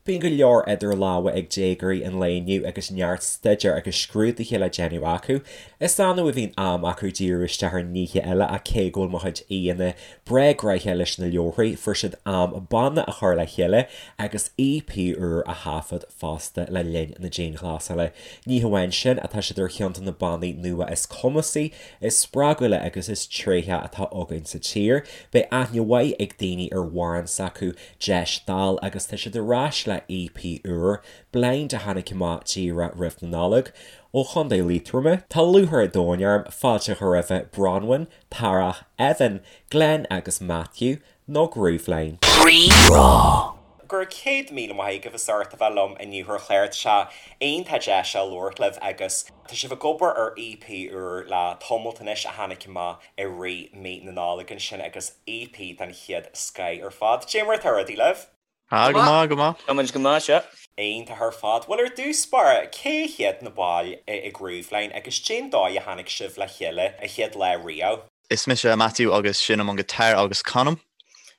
Bíonn go leor idir lámha ag déagóirí an lae inniu agus neart staidéir agus scrúduithe le déanamh acu. Is annamh a bhíonn am acu díriú isteach ar nithe eile ach cé go bhfuil mo chuid aíonna breá gnoitheach leis na leabharthaí, fuair siad am banna a chur le chéile agus EP úr a thaifead fosta le linn na dianghlasála. Ní hamháin sin, ach tá siad ar cheann de na bannaí nua is cumasaí, is spreagúla agus is tréithí atá againn sa tír. Beidh aithne mhaith ag daoine ar amhrán s'acu Deis Dall agus tá siad ar ais le EP úr, Blind a tháinig amach díreach roimh na Nollag. Ó Chontae Liatroma, tá lúcháir an domhain orm fáilte a chur roimhe Bronwyn, Tarach, Evan, Glenn agus Matthew, nó Grooveline. Rí-Rá. Go raibh 100,000 maith agaibh as ucht a bheith liom inniu ar an chlár. Tá sé iontach deas a labhairt libh agus tá sibh ag obair ar EP úr le tamalt anois a tháinig amach i rith mí na Nollag ansin agus EP den chéad scoith ar fad. Cad é mar atá rudaí libh? Ah, go maith, go maith. Tá muid go maith, sea. Iontach ar fad. Bhuel, ar dtús báire, cé hiad na baill i Grooveline agus cén dóigh a tháinig sibh le chéile an chéad lá riamh? Is mise Matthew agus seinnim an guitar agus canaim.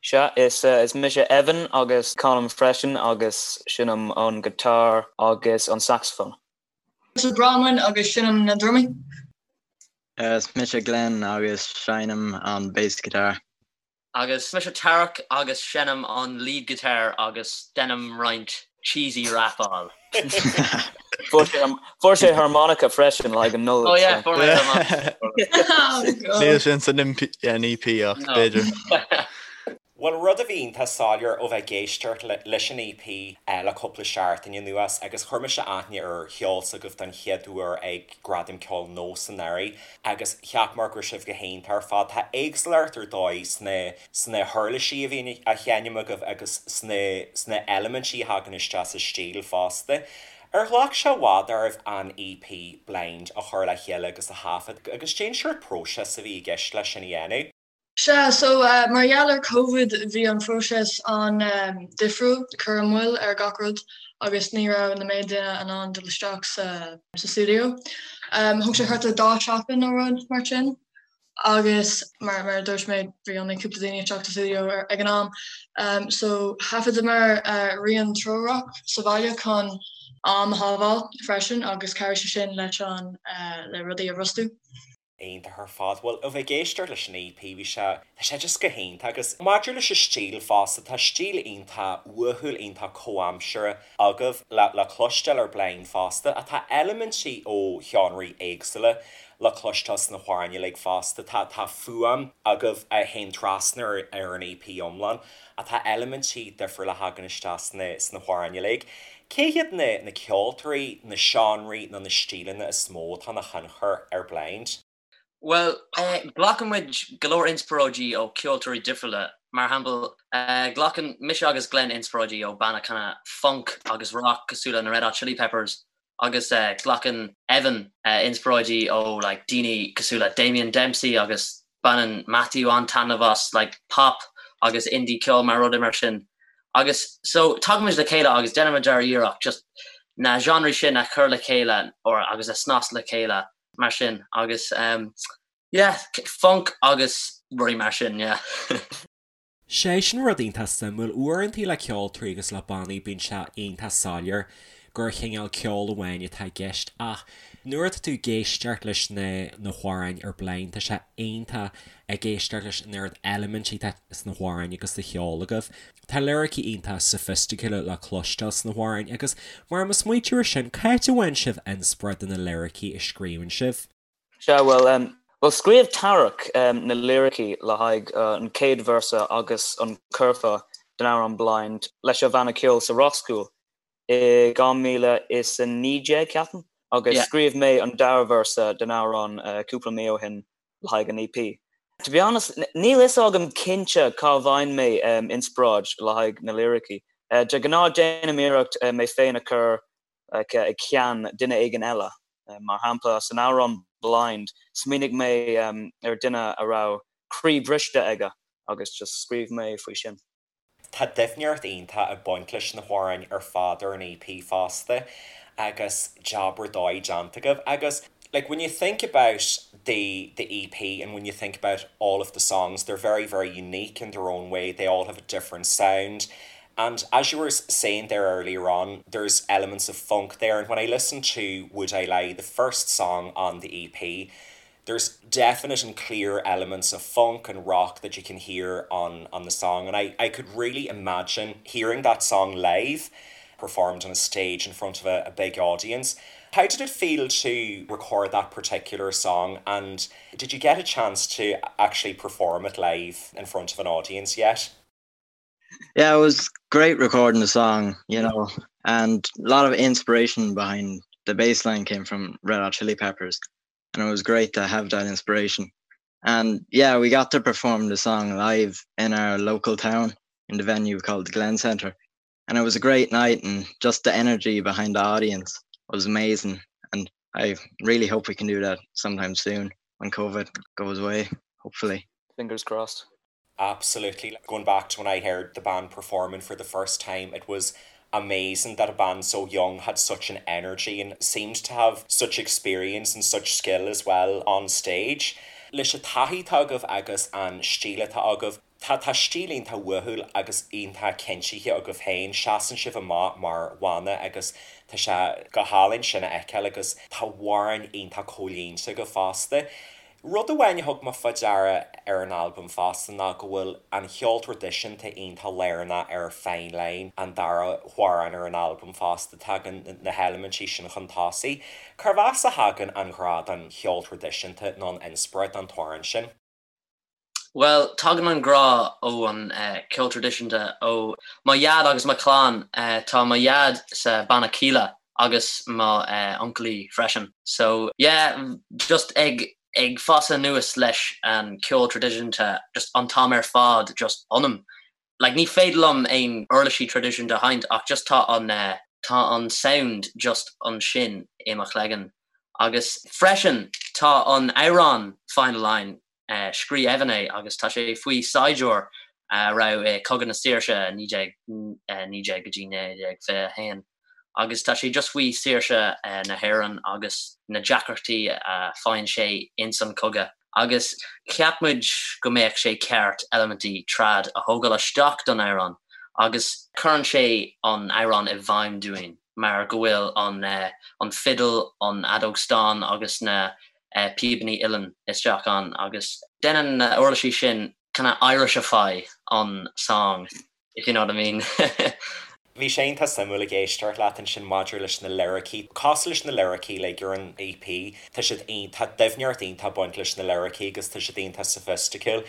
Sea, is is mise Evan agus canaim freisin agus seinnim an guitar agus an saxophone. Mise Bronwyn agus seinnim na drumaí. Is mise Glenn agus seinnim an bass guitar. Agus mise Tarach agus seinnim an lead guitar agus deinim roinnt cheesy rapáil. Fuair sé harmonica freisin le haghaidh an Nollaig. Oh yeah, fuair mé harmonica. Níl sin san EP ach b'fhéidir. Bhuel, rud a bhí iontach soiléir ó bheith ag éisteacht leis an EP le cúpla seachtain anuas, agus chuir mise aithne ar cheol s'agaibh don chéad uair ag Gradaim Ceoil Nós anuraidh, agus cheap mé go raibh sibh go hiontach ar fad. Tá éagsúlacht ar dóigh sna sna huirlisí a bhíonn á sheinm agaibh agus sna sna eilimintí a thagann isteach sa stíl fosta. Ar ghlac sé i bhfad oraibh an EP Blind a chur le chéile agus a thaifead, agus cén sórt próiseas a bhí i gceist leis sin a dhéanamh? Sea, so mar gheall ar Covid bhí an phróiseas an-difriúil, cuireadh moill ar gach rud agus ní raibh na méid duine in ann dul isteach sa stiúideo. Thóg sé thart ar dá sheachtain nó rud mar sin agus mar mar a dúirt mé bhí only cúpla daoine isteach sa stiúideo ag an am. So thaifeadamar rian treorach sa bhaile chun am a shábháil freisin agus chabhraigh sé sin leis an le rudaí a bhrostú. Iontach ar fad. Bhuel, ó bheith ag éisteacht leis an EP, bhí sé, tá sé just go hiontach agus maidir leis an stíl fosta, tá stíl iontach uathúil, iontach comhaimseartha agaibh le, le cloisteáil ar Blind fosta ach tá eilimintí ó sheánraí éagsúla le cloisteáil sna hamhráin uilig fosta. Tá, tá fuaim agaibh a théann trasna ar, ar an EP iomlán ach tá eilimintí difriúla a thagann isteach sna, sna hamhráin uilig. Cé hiad na na ceoltóirí, na seánraí nó na stíleanna is mó atá ina thionchar ar Blind? Bhuel, glacann muid go leor inspioráidí ó ceoltóirí difriúla. Mar shampla, glacann mise agus Glenn inspioráidí ó banna kind of funk agus rock cosúil le na Red Hot Chili Peppers agus glacann Evan inspioráidí ó like daoine cosúil le Damien Dempsey agus Baineann Matthew an-taitneamh as like pop agus indie ceol mar rudaí mar sin. Agus so tagaimid le chéile agus déanaimid ár iarracht just na genres sin a chur le chéile or agus a snas le chéile mar sin agus um yeah funk agus rudaí mar sin yeah. Sé sin rud iontach suimiúil. Uaireantaí le ceoltóirí agus le bannaí bíonn sé iontach soiléir gur chineál ceoil amháin atá i gceist ach nuair atá tú ag éisteacht leis na na hamhráin ar Blind tá sé iontach ag éisteacht leis an oiread eilimintí atá sna hamhráin agus sa cheol agaibh. Tá liricí iontach soifisticiúla le cloisteáil sna hamhráin agus mar mo smaoitiú ar sin, c'áit a bhfaigheann sibh inspioráid do na liricí a scríobhann sibh? Sea, bhuel, bhuel, scríobh Tarach na liricí le haghaidh an chéad véarsa agus an curfá den amhrán Blind leis an bhanna ceoil sa Rockschool i 2019, ceapaim, agus scríobh mé an dara véarsa den amhrán cúpla mí ó shin le haghaidh an EP. To be honest, níl fhios agam cinnte cá bhfaigheann mé inspioráid le haghaidh na liricí. De ghnáth déanaim iarracht mé féin a chur like i gceann duine éigin eile. Mar shampla, san amhrán Blind, smaoinigh mé ar duine a raibh croí briste aige agus just scríobh mé faoi sin. Tá doimhneacht iontach ag baint leis na hamhráin ar fad ar an EP fosta agus jab ar dóigh déanta agaibh agus like when you think about the the EP and when you think about all of the songs they're very very unique in their own way, they all have a different sound. And as you were saying there earlier on, there's elements of funk there and when I listened to Would I Lie, the first song on the EP, there's definite and clear elements of funk and rock that you can hear on on the song and I, I could really imagine hearing that song live performed on a stage in front of a, a big audience. How did it feel to record that particular song and did you get a chance to actually perform it live in front of an audience yet? Yeah, it was great recording the song, you know, and a lot of inspiration behind the bass line came from Red Hot Chili Peppers and it was great to have that inspiration. And yeah, we got to perform the song live in our local town in the venue called the Glen Center. And it was a great night and just the energy behind the audience was amazing. And I really hope we can do that sometime soon when COVID goes away, hopefully. Fingers crossed. Absolutely. Going back to when I heard the band performing for the first time, it was amazing that a band so young had such an energy and seemed to have such experience and such skill as well on stage. Leis an taithí atá agaibh agus an stíl atá agaibh, tá tá stíl iontach uathúil agus iontach cinntithe agaibh féin, seasann sibh amach mar bhanna agus tá sé go hálainn sin a fheiceáil agus tá amhráin iontach comhlíonta agaibh fosta. Rud amháin a thug mé fá deara ar an albam fosta ná go bhfuil an cheol traidisiúnta iontach lárnach ar Fine Line, an dara hamhrán ar an albam fosta. Tagann na heilimintí sin chun tosaigh. Cérbh as a thagann an ghrá don cheol traidisiúnta nó an inspioráid don t-amhrán sin? Bhuel, tagann an grá ó an ceol traidisiúnta ó mo dhaid agus mo chlann. Tá mo dhaid sa banna Kíla agus mo uncailí freisin. So yeah, just ag ag fás anuas leis an ceol traidisiúnta just an t-am ar fad just ionam. Like ní féidir liom aon uirlisí traidisiúnta a sheinnt ach just tá an tá an sound just ansin i mo chloigeann. Agus freisin tá an amhrán Fine Line Scríobh Evan é agus tá sé faoi saighdiúir a raibh i Cogadh na Saoirse 1919 go dtí 1921 agus tá sé just faoi saoirse na hÉireann agus na deacrachtaí a faigheann sé ins an cogadh agus cheap muid go mbeadh sé ceart eilimintí trad a thógáil isteach don amhrán agus cuireann sé an amhrán i bhfeidhm dúinn mar go bhfuil an an fidil, an fheadóg stáin agus na píobanna uilleann isteach ann agus déanann na uirlisí sin kind of Irishify an song, if you know what I mean. Bhí sé iontach suimiúil ag éisteacht leat ansin maidir leis na liricí. Cosúil leis na liricí uilig ar an EP, tá siad tá doimhneacht iontach ag baint leis na liricí agus tá siad iontach soifisticiúil.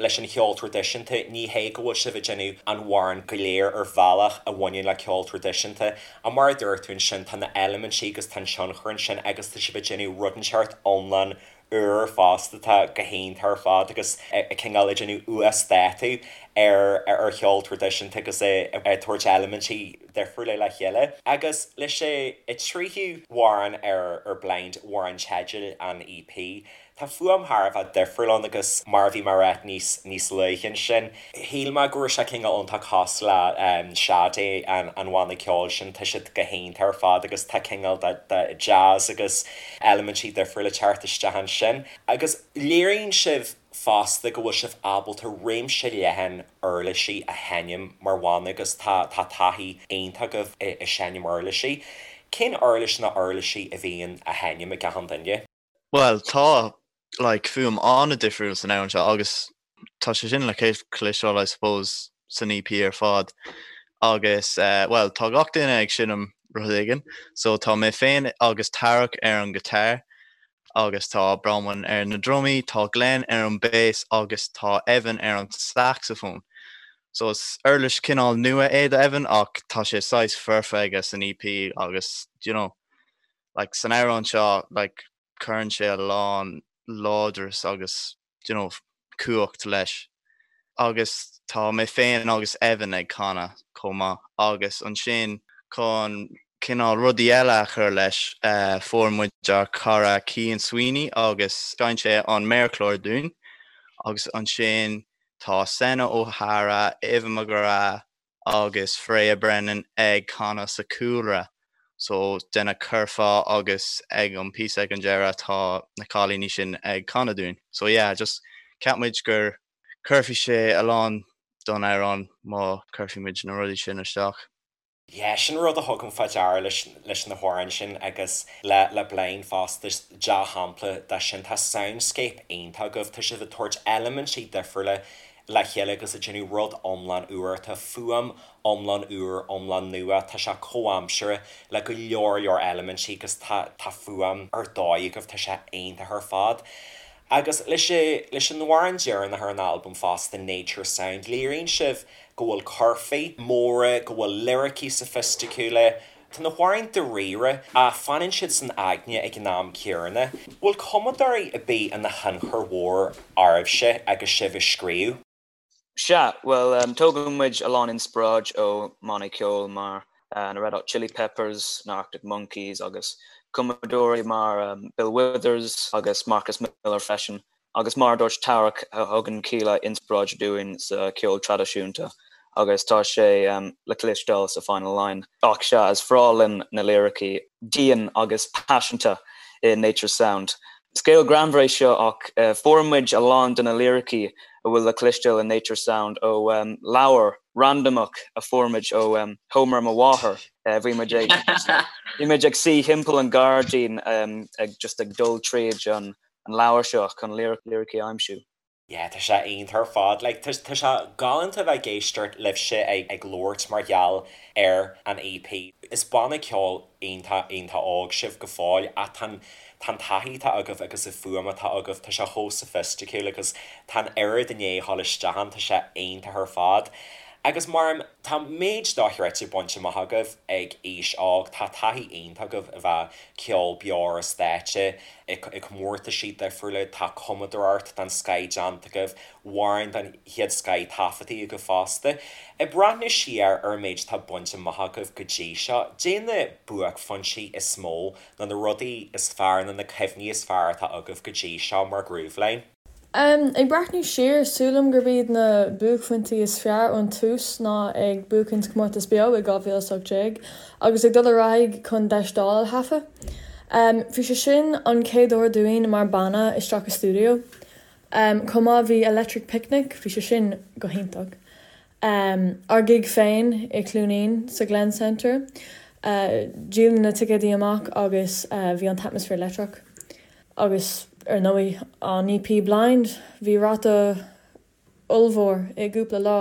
Leis an cheol traidisiúnta, ní hé go bhfuil sibh ag déanamh an amhrán go léir ar bhealach a bhaineann le ceol traidisiúnta, ach mar a dúirt tú ansin, tá na eilimintí agus tá an tionchar ansin agus tá sibh ag déanamh rud inteacht iomlán úr fosta atá go hiontach ar fad agus ag cineál ag déanamh uasdátú ar ar cheol traidisiúnta agus ag tabhairt eilimintí difriúla le chéile. Agus leis an tríú hamhrán ar ar Blind, amhrán teidil an EP, Tá fuaim thar a bheith difriúil ann agus mar a bhí mé a rá níos níos luaithe ansin, shíl mé go raibh sé cineál iontach cosúil le Sade, an an bhanna ceoil sin, tá siad go hiontach ar fad agus tá cineál de de jazz agus eilimintí difriúla ag teacht isteach ansin. Agus léiríonn sibh fosta go bhfuil sibh ábalta réimse leathan uirlisí a sheinm mar bhanna agus tá tá taithí iontach agaibh i i seinm uirlisí. Cén uirlis nó uirlisí a bhíonn á sheinm ag achan duine? Bhuel, tá, like, fuaim an-difriúil san amhrán seo agus tá sé sin le cloisteáil, I suppose, san EP ar fad. Agus, eh, bhuel, tá gach duine ag seinm rud éigin, so tá mé féin agus Tarach ar an guitar agus tá Bronwyn ar na drumaí, tá Glenn ar an bass agus tá Evan ar an saxophone. So is uirlis cineál nua é do Evan ach tá sé saghas foirfe aige san EP agus, do you know, like san amhrán seo like cuireann sé a lán láidreas agus do you know cumhacht leis. Agus tá mé féin agus Evan ag canadh chomh maith agus ansin chun cineál rudaí eile a chur leis eh fuair muid ár cara Cian Sweeney agus sheinn sé an méarchlár dúinn agus ansin tá Senna O'Hara, Eva McGrath, agus Freya Brennan ag canadh sa chúlra so déanamh curfá agus ag an píosa ag an deireadh tá na cailíní sin ag canadh dúinn. So yeah just cheap muid gur chuirfeadh sé a lán don amhrán má chuirfidh muid na rudaí sin isteach. Yeah, sin rud a thugaim fá deara leis leis na hamhráin sin agus le le Blind fosta, is dea-shampla de sin. Tá soundscape iontach agaibh, tá sibh ag tabhairt eilimintí difriúla le chéile agus ag déanamh rud iomlán úr. Tá fuaim iomlán úr, iomlán nua, tá sé comhaimseartha le go leor leor eilimintí agus tá tá fuaim ar dóigh agaibh, tá sé iontach ar fad. Agus leis leis an amhrán deireanach ar an albam fosta, Nature Sound, léiríonn sibh go bhfuil curfaí móra, go bhfuil liricí soifisticiúla. Tá na hamhráin dáiríre ach fanann siad san aigne ag an am céanna. Bhfuil cumadóirí ar bith ina thionchar mhór oraibhse agus sibh ag scríobh? Sea, bhuel, tógann muid a lán inspioráid ó mbannaí ceoil mar na Red Hot Chili Peppers, na Arctic Monkeys agus cumadóirí mar Bill Withers agus Marcus Miller freisin. Agus mar a dúirt Tarach, thugann Kíla inspioráid dúinn sa cheol traidisiúnta agus tá sé le cloisteáil sa Final Line. Ach sea, is breá linn na liricí dian agus paiseanta i Nature's Sound. Scéal greannmhar é seo ach fuair muid a lán de na liricí a bhfuil le cloisteáil i Nature's Sound ó leabhar randamach a fuair muid ó sheomra mo mháthar. Bhí muid ag bhí muid ag suí thimpeall an ghairdín ag just ag dul tríd an an leabhar seo chun liricí a aimsiú. Yeah, tá sé iontach ar fad. Like, tá, tá sé galánta bheith ag éisteacht libhse ag, ag labhairt mar gheall ar an EP. Is banna ceoil iontach, iontach óg sibh go fóill ach tá an, tá an taithí atá agaibh agus an fuaim atá agaibh, tá sé chomh soifisticiúil agus tá an oiread i ndiaidh a dhul isteach ann, tá sé iontach ar fad. Agus mar, tá méid dochreidte bainte amach agaibh ag aois óg, tá taithí iontach agaibh a bheith ceol beo ar an stáitse, i gcomórtaisí difriúla, tá cumadóireacht den scoith déanta agaibh, amhráin den chéad scoith taifeadtaí agaibh fosta. Ag breathnú siar ar an méid atá bainte amach agaibh go dtí seo, caidé na buaicphointí is mó nó na rudaí is fearr nó na cuimhní is fearr atá agaibh go dtí seo mar Grooveline? Ag breathnú siar, sílim gurb iad na buaicphointí is fearr ón tús ná ag buachaint comórtas beo i 2018 agus ag dul ar aghaidh chun Deis Dála a thaifeadh. Bhí sé sin an chéad uair dúinn mar banna isteach i stiúideo. Chomh maith bhí Electric Picnic, bhí sé sin go hiontach. Ár gig féin i Cluainín sa Glen Centre. Díoladh na ticéadaí amach agus bhí an t-atmaisféar leictreach. Agus ar ndóigh an EP Blind, bhí ráta ollmhór i gcúpla lá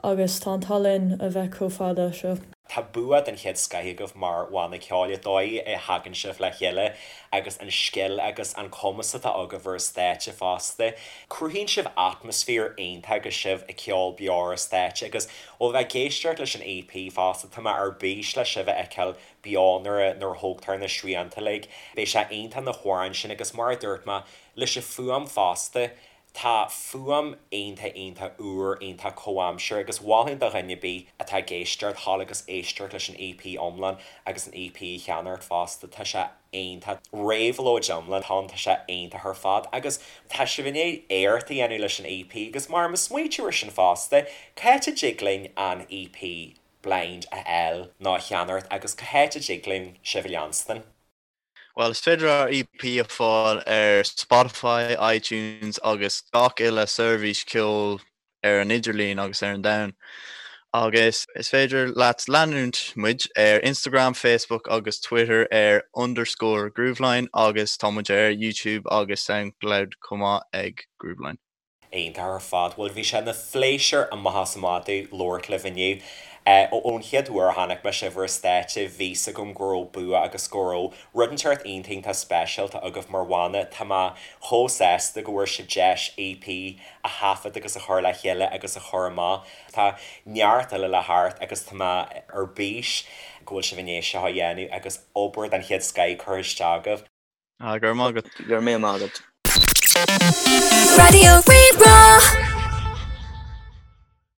agus tá an t-ádh linn a bheith chomh fada seo. Tá bua den chéad scoith agaibh mar bhanna ceoil, an dóigh a thagann sibh le chéile agus an scil agus an cumas atá agaibh ar an stáitse fosta. Cruthaíonn sibh atmaisféar iontach agus sibh ag ceol beo ar an stáitse agus ó bheith ag éisteacht leis an EP fosta, tá mé ar bís le sibh a fheiceáil beo nuair a nuair a thógtar na srianta uilig. Beidh sé iontach na hamhráin sin agus mar a dúirt mé, leis an fuaim fosta, tá fuaim iontach iontach úr, iontach comhaimseartha agus mholfainn do dhuine ar bith atá ag éisteacht, dhul agus éisteacht leis an EP iomlán agus an EP a cheannacht fosta, tá sé iontach. Réabhlóid iomlán atá ann, tá sé iontach ar fad agus tá sibh i ndiaidh éacht a dhéanamh leis an EP agus mar mo smaoitiú ar sin fosta, cá háit a dtig linn an EP Blind a fháil nó a cheannacht agus cá háit a dtig linn sibh a leanstan? Bhuel, is féidir ár EP a fáil ar Spotify, iTunes agus gach uile seirbhís ceoil ar an idirlíon agus ar an domhan. Agus is féidir leat leanúint muid ar Instagram, Facebook agus Twitter ar underscore Grooveline agus tá muid ar YouTube agus Soundcloud chomh maith ag Grooveline. Iontach ar fad. Bhuel, bhí sé ina phléisiúr amach is amach domh labhairt libh inniu. Ón chéad uair a chonaic mé sibh ar an stáitse, bhí 's agam go raibh bua agus go raibh rud inteacht iontach iontach speisialta agaibh mar bhanna. Tá mé chomh sásta go bhfuair sibh deis EP a thaifead agus a chur le chéile agus a chur amach. Tá neart eile le theacht agus tá mé ar bís go bhfuil sibh i ndiaidh seo a dhéanamh agus obair den chéad scoith curtha isteach agaibh. Ah, go raibh maith agat. Go raibh míle maith agat. Raidió Rí-Rá.